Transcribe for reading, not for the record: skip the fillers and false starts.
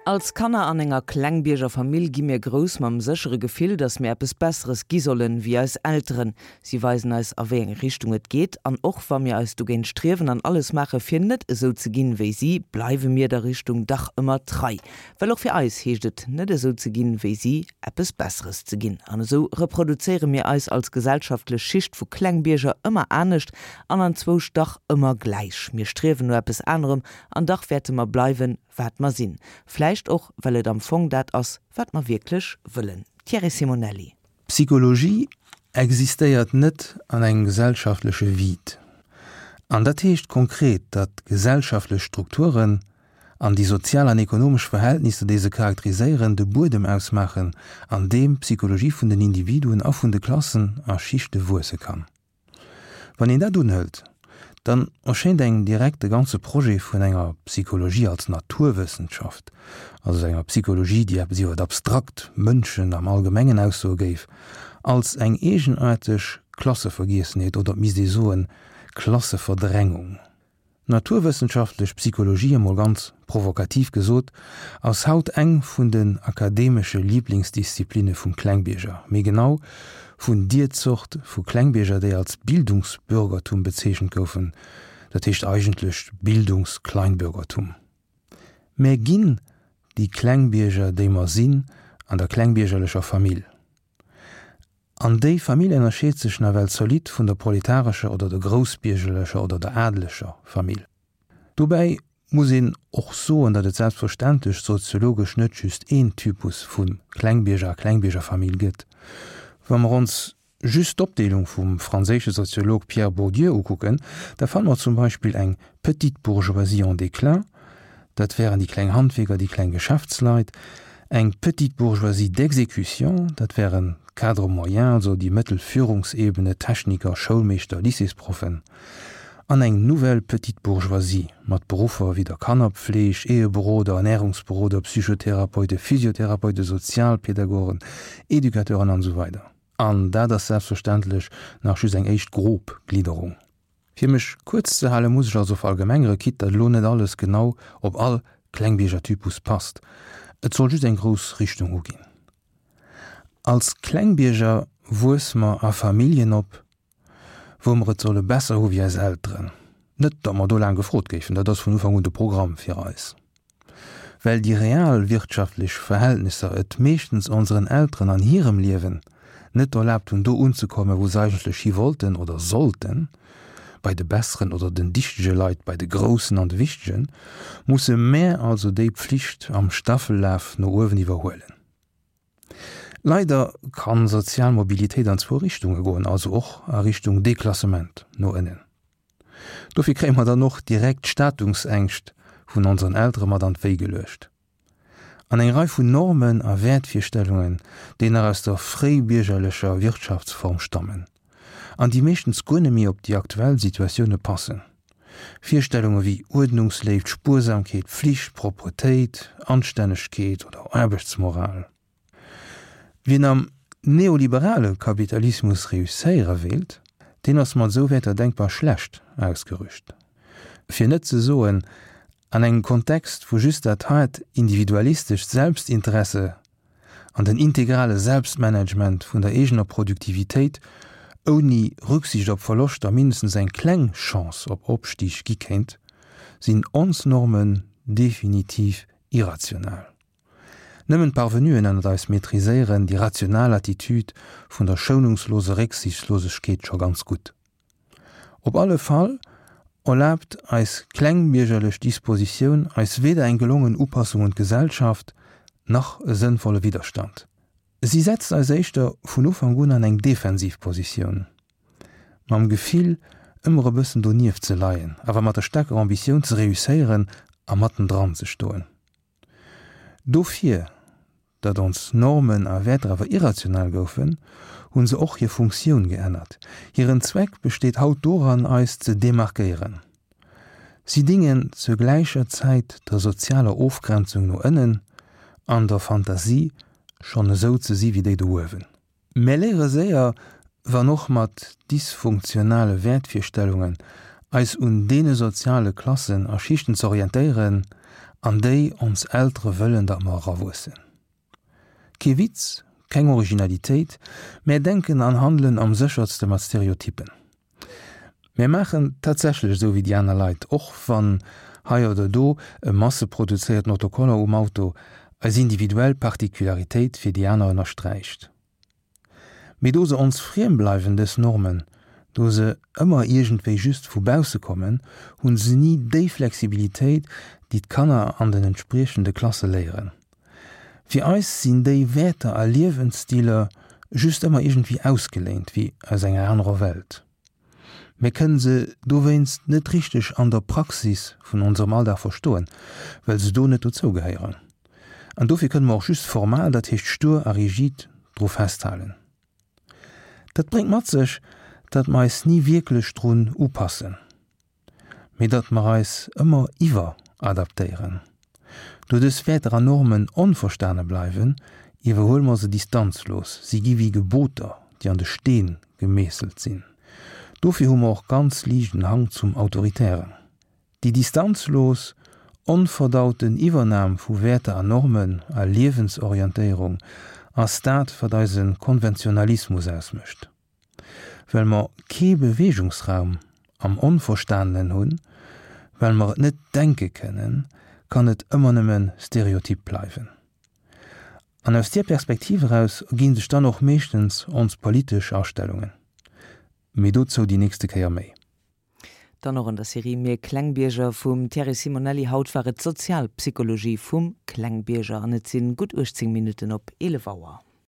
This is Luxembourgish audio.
Als Kanner an enger Klengbierger-Famill gi mir grouss mam séchere Gefill, dass mir eppes Besseres gi sollen, wéi eis Elteren. Si weisen eis, a wéi eng Richtung et geet. An och wa mir eis dogéint striewen an alles maache fir net esou ze ginn, wéi si, bleiwe mir der Richtung dach ëmmer trei. Well och fir eis heescht et, net esou ze ginn, wéi si, eppes Besseres ze ginn. An esou reproduzéiere mir eis als gesellschaftlech Schicht vu Klengbierger ëmmer anescht an anzwousch dach ëmmer gläich. Mir striewen no eppes anerem an dach wäerte mer bleiwen, wat mer sinn. Vläicht och, well et am Fong dat ass, wat mer wierklech wëllen. Thierry Simonelli. Psychologie existéiert net an engem gesellschaftleche Vide. An dat heescht konkret, datt gesellschaftlech Strukturen an déi sozial an ekonomesch Verhältnisser, déi se charakteriséieren, de Buedem ausmaachen, an deem d'Psychologie vun den Individuen a vun de Klassen a Schichte wuesse kann. Wann een dat unhëlt, dann erschéint engem direkt de ganze Projet vun enger Psychologie als Naturwëssenschaft, also enger Psychologie, déi eppes iwwer abstrakt Mënschen am Allgemengen aussoe géif, als eng eegenaarteg Klassevergiessenheet oder et misst ee soen, Klasseverdrängung. D'naturwëssenschaftlech Psychologie, emol ganz provokativ gesot, ass haut eng vun den akademesche Liblingsdisziplinne vum Klengbierger, méi genau vun dier Zort vu Klengbierger, déi als Bildungsbürgertum bezeechent goufen, dat heescht eigentlech Bildungskleinbürgertum. Mär ginn déi Klengbierger, déi mer sinn an der klengbiergerlecher Famill. An déi Famill ënnerscheet sech nawell zolidd vun der proletarescher oder der groussbiergerlecher oder der adeleger Famill. Dobäi muss een och soen, datt et selbstverständlech soziologesch net just een Typus vu Klengbierger a Klengbiergerfamill gëtt. Wa mer ons just d'Opdeelung vum franséische Soziolog Pierre Bourdieu ukucken, da fanne mer zum Beispill eng petite bourgeoisie en déclin, dat wären déi kleng Handwierker, déi kleng Geschäftsleit, eng petite bourgeoisie d'exécution, dat wären d'Cadres moyens, also déi mëttel Führungsebene, Techniker, Schoulmeeschter, Lycéesproffen, an eng nouvelle petite bourgeoisie mat Beruffer wéi der Kannerpfleg, Eheberoder, Ernährungsberoder, Psychotherapeute, Physiotherapeute, Sozialpädagogen, Educateuren an esou weider. An dat ass selbstverständlech nach just eng éischt grob Glidderung. Fir mech kuerz ze halen, muss ech also verallgemengere, quitte datt elo net alles genau op all Klengbiergertypus passt. Et soll just eng grouss Richtung uginn. Als Klengbierger wuesse mer a Familljen op, wou mer et solle besser hu wéi eis Elteren. Net datt mer do laang gefrot géifen, dat ass vun Ufank un de Programm fir eis. Well déi real wirtschaftlech Verhältnisser et meeschtens onseren Elteren an hirem Liewen net erlaabt hunn, do unzekommen, wou se eigentlech hi wollten oder sollten, bei de besseren oder den dichtege Leit, bei de Groussen an de Wichtegen, musse mär also déi Pflicht am Staffellaf no uewen iwwerhuelen. Leider kann sozial Mobilitéit an zwou Richtunge goen, also och a Richtung Deklassement no ënnen. Dofir kréie mer dann och direkt d'Statungsängscht vun onseren Eltere mat an d'Wéi geluecht. An eng Rei vun Normen a Wäertvirstellungen, déi nach aus der fréibiergerlecher Wirtschaftsform stammen an déi meeschtens guer net méi op déi aktuell Situatioune passen. Virstellunge wéi Uerdnungsléift, Spuersamkeet, Pflicht, Propretéit, Anstännegkeet oder Aarbechtsmoral. Wien am neoliberale Kapitalismus reusséiere wéilt, deen ass mat esou Wäerter denkbar schlecht ausgerüst. Fir net ze soen, an engem Kontext, wou just dat haart individualistescht Selbstinteresse an den integrale Selbstmanagement vun der eegener Produktivitéit ouni Rücksicht op Verloschter mindestens eng kleng Chance op Opstig gi kéint, sinn ons Normen definitiv irrational. Nëmmen d'Parvenuen ënnert eis maîtriséieren déi rational Attitude vun der schounungslose Récksichtslosegkeet scho ganz gutt. Op alle Fall erlaabt eis klengbiergerlech Dispositioun eis weder eng gelongen Upassung un d'Gesellschaft, nach e sënnvolle Widderstand. Si setzt eis éischter vun Ufank un an eng defensiv Positioun, mam Gefill ëmmer e bëssen donieft ze leien, awer mat der staarker Ambitioun ze reusséieren a mattendran ze stoen. Dofir, datt ons Normen a Wäerter awer irrational goufen, hu se och hir Funktioun geännert. Hiren Zweck besteet haut doran, eis ze demarkéieren. Si dingen zur gläicher Zäit der sozialer Ofgrenzung no ënnen an der Fantasie, schonn esou ze si wéi déi do uewen. Mär léiere séier, wann och mat dysfunktionale Wäertvirstellungen, eis un deene soziale Klassen a Schichten ze orientéieren, an déi ons Eltere wëllen, datt mer erawuessen. Kee Witz, keng Originalitéit, mär denken an handelen am séchertste mat Stereotypen. Mär maachen tatsächlech esou wéi déi aner Leit, och wann hei oder do e masseproduzéierten Autocollant um Auto eis individuell Particularitéit fir déi aner ënnersträicht. Mee do se ons friem bleiwen, dës Normen, do se ëmmer iergendwéi just vu bausse kommen, hunn se ni déi Flexibilitéit, déi d'Kanner an den entspriechende Klasse léieren. Fir eis sinn déi Wäerter a Liewensstiler just ëmmer iergendwéi ausgeléint, wéi aus enger anerer Welt. Mir kënnen se dowéinst net richteg an der Praxis vun onserem Alldag verstoen, well se do net dozou gehéieren. An dofir kënne mer och just formal, dat heescht stur a rigid, dru festhalen. Dat bréngt mat sech, datt mer eis ni wierklech drun upassen. Mee datt mer eis ëmmer iwweradaptéieren. Do dës Wäerter an Normen onverstane bleiwen, iwwerhuele mer se distanzlos, si gi wéi Geboter, déi an de Steen gemeesselt sinn. Dofir hu mer och ganz liicht en Hang zum Autoritären. Déi distanzlos, onverdauten Iwwernam vu Wäerter an Normen a Liewensorientéierung ass dat, wat eise Konventionalismus ausmécht. Well mer kee Beweegungsraum am Onverstanenen hunn, well mer et net denke kënnen, kann et ëmmer nëmme Stereotyp bleiwen. An aus deer Perspektiv eraus erginn sech dann och meeschtens ons politesch Astellungen. Mee dozou déi nächste Kéier méi. Dann och an der Serie Mir Klengbierger vum Thierry Simonelli. Haut war et d'Sozialpsychologie vum Klengbierger an et sinn gutt 18 Minutten op 11 Auer.